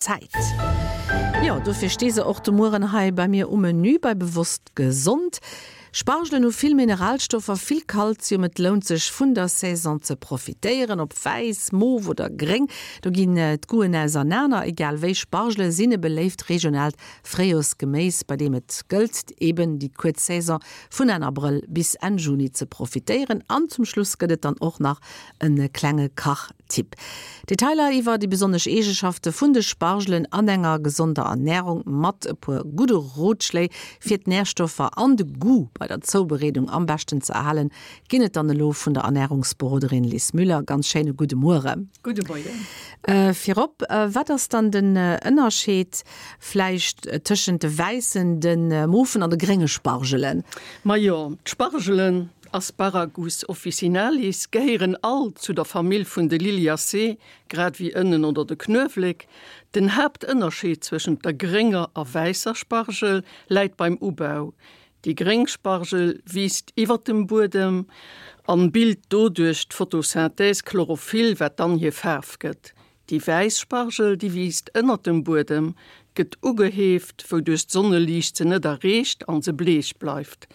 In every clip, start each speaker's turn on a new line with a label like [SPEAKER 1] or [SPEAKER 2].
[SPEAKER 1] Zäit. Jo, dofir sti se och de Mueren hei bei mir um Menü bei Bewosst Gesond. Spargelen hu vill Mineralstoffer, vill Kalzium. Et lount sech vun der Saison ze profitéieren, ob wäiss, mof oder gréng, do ginn d'Goûten ausernaner. Egal wéi, Spargele sinn e beléift regionaalt Fréijorsgeméis, bei deem et gëllt, eben déi kuerz Saison vun Enn Abrëll bis Enn Juni ze profitéieren. An zum Schluss gëtt et dann och nach e klenge Kach. Tipp. Detailer iwwer déi besonnesch Eegeschafte vun de Spargelen an enger gesonder Ernärung mat e puer gudde Rotschléi fir d'Närstoffer an de Goût bei der Zoubereedung am beschten ze erhalen, ginn et dann elo vun der Ernärungsberoderin Lis Müller. Ganz schéine gudde Muere.
[SPEAKER 2] Gudde Moien.
[SPEAKER 1] Virop, wat ass dann den Ënnerscheed vläicht tëschent de wäissen, de mofen an de grénge Spargelen?
[SPEAKER 2] Majo, d'Spargelen Asparagus officinalis, gehéieren all zu der Famill vun de Liliaceae, grad wéi Ënnen oder de Knuewelek. Den Haaptënnerscheed zwëschent der grénger a wäisser Spargel läit beim Ubau. Déi gréng Spargel wiisst iwwer dem Buedem an bilt doduerch d'Photosynthèse Chlorophyll, wat dann hir Faarf gëtt. Déi wäiss Spargel, déi wiisst ënnert dem Buedem, gëtt ugeheeft, wouduerch d'Sonneliicht se net erreecht an se bleech bleift.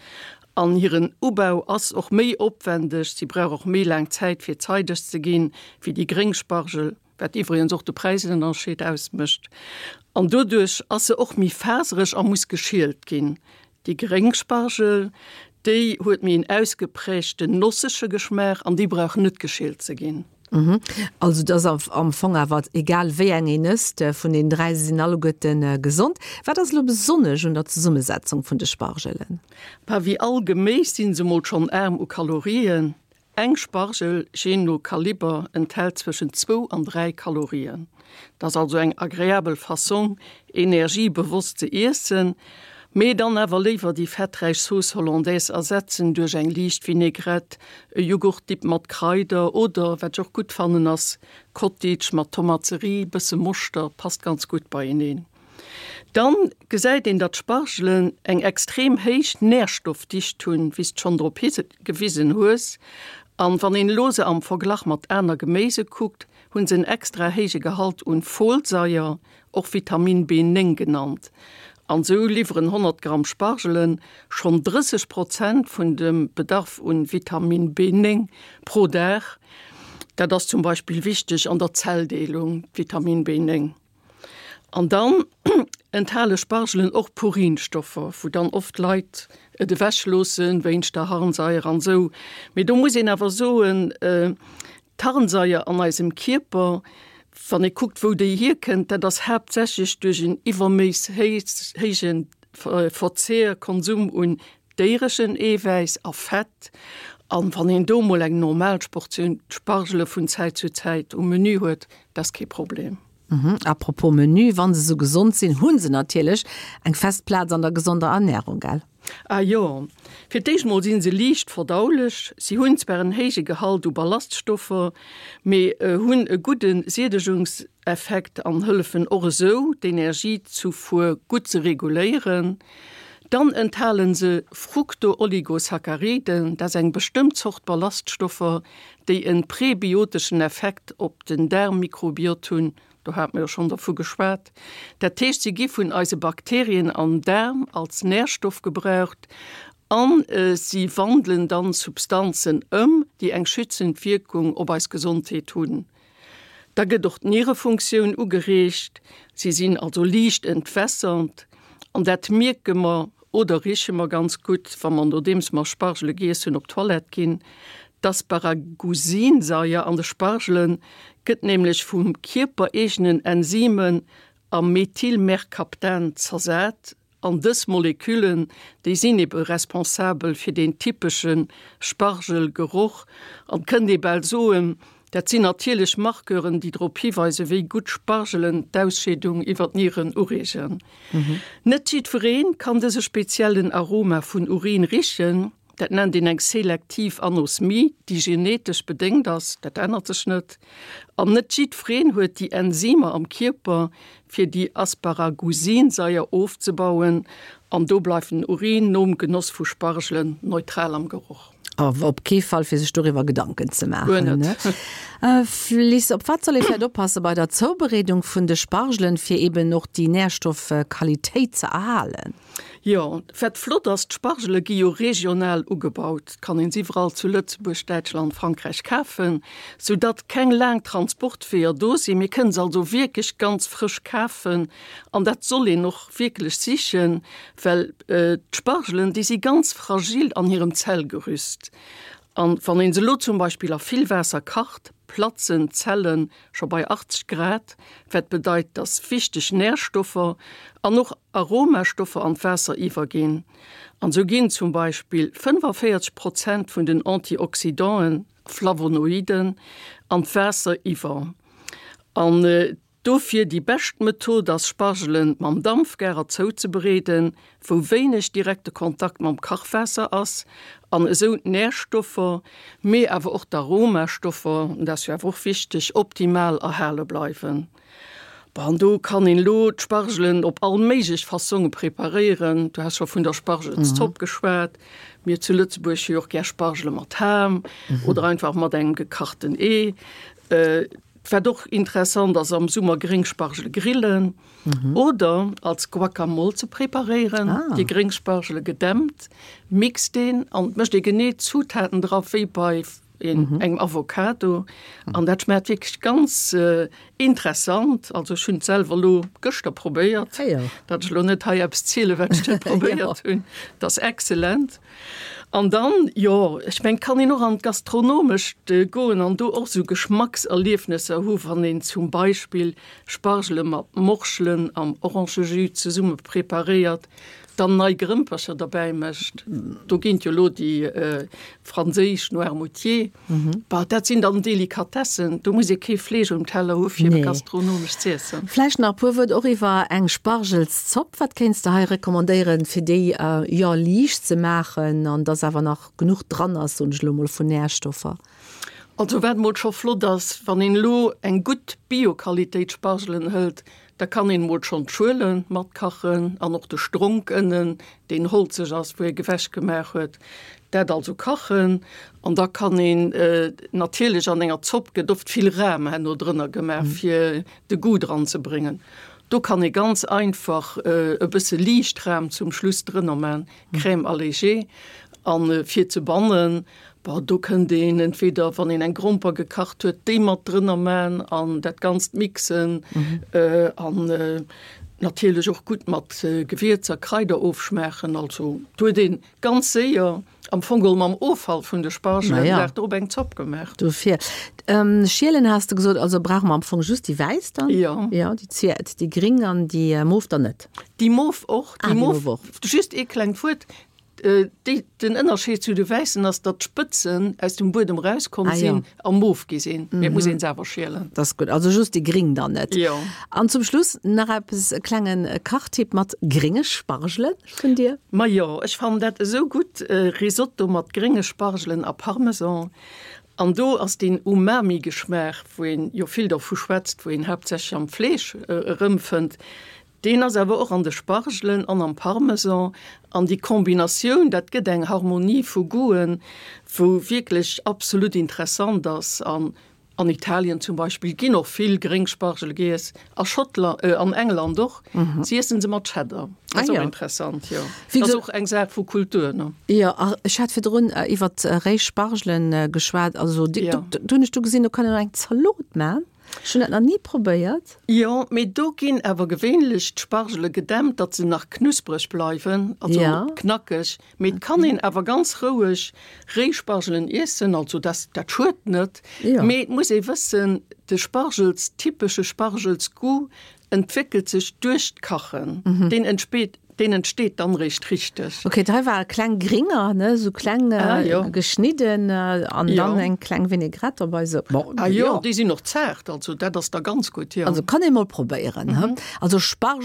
[SPEAKER 2] An hiren Ubau ass och méi opwendeg, si brauch och méi laang Zäit fir zeideg ze ginn, wéi déi gréng Spargel, wat iwwregens och de Präisënnerscheed ausmécht. An doduerch ass se och méi fasereg a muss geschielt ginn. Déi gréng Spargel, déi huet méi en ausgeprägten nossege Geschmaach
[SPEAKER 1] an
[SPEAKER 2] déi brauch net geschielt ze ginn.
[SPEAKER 1] Also et ass am Fong awer egal wéi eng een ësst, vun den 3, se sinn alleguerte gesond. Wat ass elo besonnesch un der Zesummesetzung vun de Spargelen?
[SPEAKER 2] Bah, wéi all Geméis sinn se mol schonn aarm u Kalorien. Eng Spargel, jee no Kaliber, enthält zwëschen zwou an 3 Kalorien. Dat ass also eng agreabel Fassong energiebewosst ze iessen. Mee dann awer léiwer déi fetträich Sauce Hollandaise ersetzen duerch eng liicht Vinaigrette, e Jughurtdip mat Kraider oder, wat ech och gutt fannen ass, Cottage mat Tomaterie, bësse Moschter, passt ganz gutt beieneen. Dann gesäit een datt Spargelen eng extrem héich Nährstoffdicht hunn, wéi s de schonn drop higewisen hues. An wann een elo se am Verglach mat aner Geméise kuckt, hunn se en extra héije Gehalt un Folsaier, och Vitamin B9 genannt. An sou liwweren 100 Gramm Spargelen schonn 30 Prozent vun dem Bedarf un Vitamin B9 pro Dag. Dat ass zum Beispill wichteg an der Zelldeelung, d'Vitamin B9. An dann enthale Spargelen och Purinstoffer, wou dann oft Leit et ewech loossen wéinst der Harnsaier an sou. Mee do muss een awer soen, D'Harnsaier an eisem Kierper, wann ee kuckt wou déi hierkënnt, dat ass haaptsächlech duerch en iwwerméiss héije Verzehr, Konsum un déiereschen Eewäiss a Fett. An wann een do mol eng normal Portioun Spargele vun Zäit zu Zäit um Menü huet, dat ass kee Problem.
[SPEAKER 1] A propos Menü, wa se sou gesond sinn, hu se natierlech eng fest Plaz an der gesonder Ernärung, gell?
[SPEAKER 2] Ah jo, fir d'éischt mol sinn se liicht verdaulech. Si hunn zwar en héije Gehalt u Ballaststoffer, mee hunn e gudde Siedegungseffekt an hëllefen och esou, d'Energiezufuer gutt ze reguléieren. Dann enthalen se Fructooligosacchariden, dat ass eng bestëmmt Zort Ballaststoffer, déi en prebioteschen Effekt op den Daarmmikrobiot hunn. Do hate mer jo schonn dervu geschwat. Dat heescht, si gi vun eise Bakterien am Daarm als Närstoff gebraucht a si wandelen dann Substanzen ëm, déi eng schützend Wierkung op eis Gesondheet hunn. Da gëtt och d'Nierefunktioun ugereegt. Si sinn also liicht entwässernd an dat mierke mer Oder riche mer ganz gutt, wa mer nodeems mer Spargele giess hunn op d'Toilette ginn. D'Asparagusinsaier an de Spargele gëtt nämlech vum kierpereegenen Enzymen a Methylmercaptan zersat an dës Moleküllen, déi sinn ebe responsabel fir deen typesche Spargelgeroch an kënnt ee bal soen, Dat sinn natierlech Marqueuren, déi drop hiweisen, wéi gutt Spargelen d'Ausscheedung iwwer d'Nieren ureegen. Net jiddweree kann dëse speziellen Aroma vun Urin richen. Dat nennt een eng selektiv Anosmie, déi genetesch bedéngt ass, dat ännert sech net. An net jiddwereen huet déi Enzymer am Kierper, fir déi Asparagusinsaier ofzebauen. An do bleift den Urin nom Genoss vu Spargelen neutral am Geroch.
[SPEAKER 1] Awer op kee Fall fir sech doriwwer Gedanken ze maachen.
[SPEAKER 2] Guer net.
[SPEAKER 1] Liz, op wat soll ee vläicht oppasse bei der Zoubereedung vun de Spargelen, fir eben och déi Nährstoffqualitéit ze erhalen?
[SPEAKER 2] Jo, wat flott ass, d'Spargele gi jo regional ugebaut, kann een se iwwerall zu Lëtzebuerg, Däitschland, Frankräich kafen, sou datt keng laang Transportweeër do sinn. Mir kënnen se also wierklech ganz frësch kafen an dat soll een och wierklech sichen, well d'Spargelen, déi si ganz fragil an hirem Zellgerüst an wann een se elo zum Beispill a vill Waasser kacht, platzen d'Zellen scho bei 80 Grad, wat bedeit, dass wichteg Närstoffer an och Aromastoffer an d'Waasser iwwerginn. An sou ginn zum Beispill 45 Prozent vun den Antioxydanten, Flavonoiden, an d'Waasser iwwer. An dofir déi bescht Method ass Spargelen mam Dampfgarer zouzebereeden, wou wéineg direkte Kontakt mam Kachwaasser ass an esou d'Närstoffer, mee awer och d'Aromastoffer, dat ass jo awer och wichteg, optimal erhale bleiwen. Bon, an do kann een elo d'Spargelen op all méiglech Fassonge preparéieren. Du has scho vun der Spargelszopp geschwat. Mir zu Lëtzebuerg hu jo och gär Spargele mat Ham oder einfach mat engem gekachten Ee. Wat och interessant ass, am Summer gréng Spargele grillen oder als Guacamole ze preparéieren. Déi gréng Spargele gedämpt, mixt een an mécht ee genee d'Zutaten dra wéi bei engem Avocado. An dat schmaacht wierklech ganz interessant. Also ech hunn et selwer elo gëschter probéiert, datt ech elo net hei eppes zielen, wat ech net probéiert hunn. Et ass excellent. An dann, jo, ech mengen, et kann een och an d'Gastronomescht goen an do och esou Geschmackserliefnesser hu wann een zum Beispill Spargele mat Morschelen am Orangejus zesumme preparéiert, dann nei Grëmpercher derbäi mécht. Do ginn et jo elo déi franséisch Noirmoutier. Bah, dat sinn dann Delikatessen, do muss ee kee Fleesch um Teller hu fir gastronomesch z'iessen.
[SPEAKER 1] Vläicht nach e puer Wuert och iwwer eng Spargelszopp. Wat kéints de hei recommandéieren, fir déi, jo, liicht ze maachen an dass awer nach genuch dran ass, soen ech elo mol, vun Närstoffer?
[SPEAKER 2] Also wat mol scho flott ass, wann een elo eng gutt Bio-Qualitéit Spargelen hëlt, da kann een mol schonn d'Schuele matkachen an och de Stronk ënnen, deen holzeg ass, wou ee gewech gemaach huet, dat also kachen. An da kann een natierlech, an enger Zopp gëtt oft vill Ram herno drënner gemaach, fir de Goût dran ze bréngen. Do kann ee ganz einfach e bësse liicht Ram zum Schluss drënner man, Crème allégée. An fir ze bannen, Bon, do kënnt een entweder, wann een eng Gromper gekacht huet, déi mat drënner man an dat Ganzt mixen an natierlech och gutt mat Gewierzer, Kraider ofschmaachen. Also do huet een ganz séier am Fong geholl mam Offall vun de Spargelen den Dag drop eng Zopp gemaach.
[SPEAKER 1] Dofir. Schielen has de gesot, also brauche mer am Fong just déi wäiss dann?
[SPEAKER 2] Jo.
[SPEAKER 1] Jo, déi zweet, déi gring an déi mof dann net?
[SPEAKER 2] Déi mof och, déi mof och. Just ee klengt Wuert, Den Ënnerscheed zu de wäissen ass, datt d'Spëtzen aus dem Buedem erauskomm sinn a mof gi sinn. Mee et muss een se awer schielen.
[SPEAKER 1] Dat ass gutt. Also just déi gring dann net.
[SPEAKER 2] Jo.
[SPEAKER 1] An zum Schluss nach eppes, e klenge Kachtipp mat grénge Spargele vun dir?
[SPEAKER 2] Majo, ech fannen dat esou gutt, Risotto mat grénge Spargelen a Parmesan. An do ass deen Umami-Geschmaach, wou een jo vill dervu schwätzt, wou een haaptsächlech am Fleesch erëmfënnt, Deen ass awer och an de Spargelen an am Parmesan an déi Kombinatioun, dat gëtt eng Harmonie vu Goûten, wou wierklech absolut interessant ass. An an Italien zum Beispill ginn och vill gréng Spargele giess, a Schottland, an England och. Si iessen se mat Cheddar. Dat ass och interessant, jo. Dat ass och eng Saach vu Kultur, ne?
[SPEAKER 1] Jo, a ech hat virdrun iwwert réi Spargelen geschwat. Also do hunn ech du gesinn, do kann een och eng Zalot man. Ech hunn dat nach ni probéiert.
[SPEAKER 2] Jo, mee do ginn awer gewéinlech d'Spargele gedämpt, datt se nach knuspreg bleiwen, also knackeg. Mee et kann een awer ganz roueg réi Spargelen iessen, also dat dat schued net. Mee et muss ee wëssen, de Spargels, typesche Spargelsgoût entwéckelt sech duerch d'Kachen. Deen entspeet Deen entsteet dann réischt richteg.
[SPEAKER 1] Ok, hei war kleng gringer, ne, sou kleng ah, jo. geschnidden an jo. dann eng kleng Vinaigrette dobei
[SPEAKER 2] sou. Bon, ah jo, déi sinn och zaart, also dat ass da ganz gutt,
[SPEAKER 1] jo. Also kann ee mol probéieren, mhm. Also Spargel.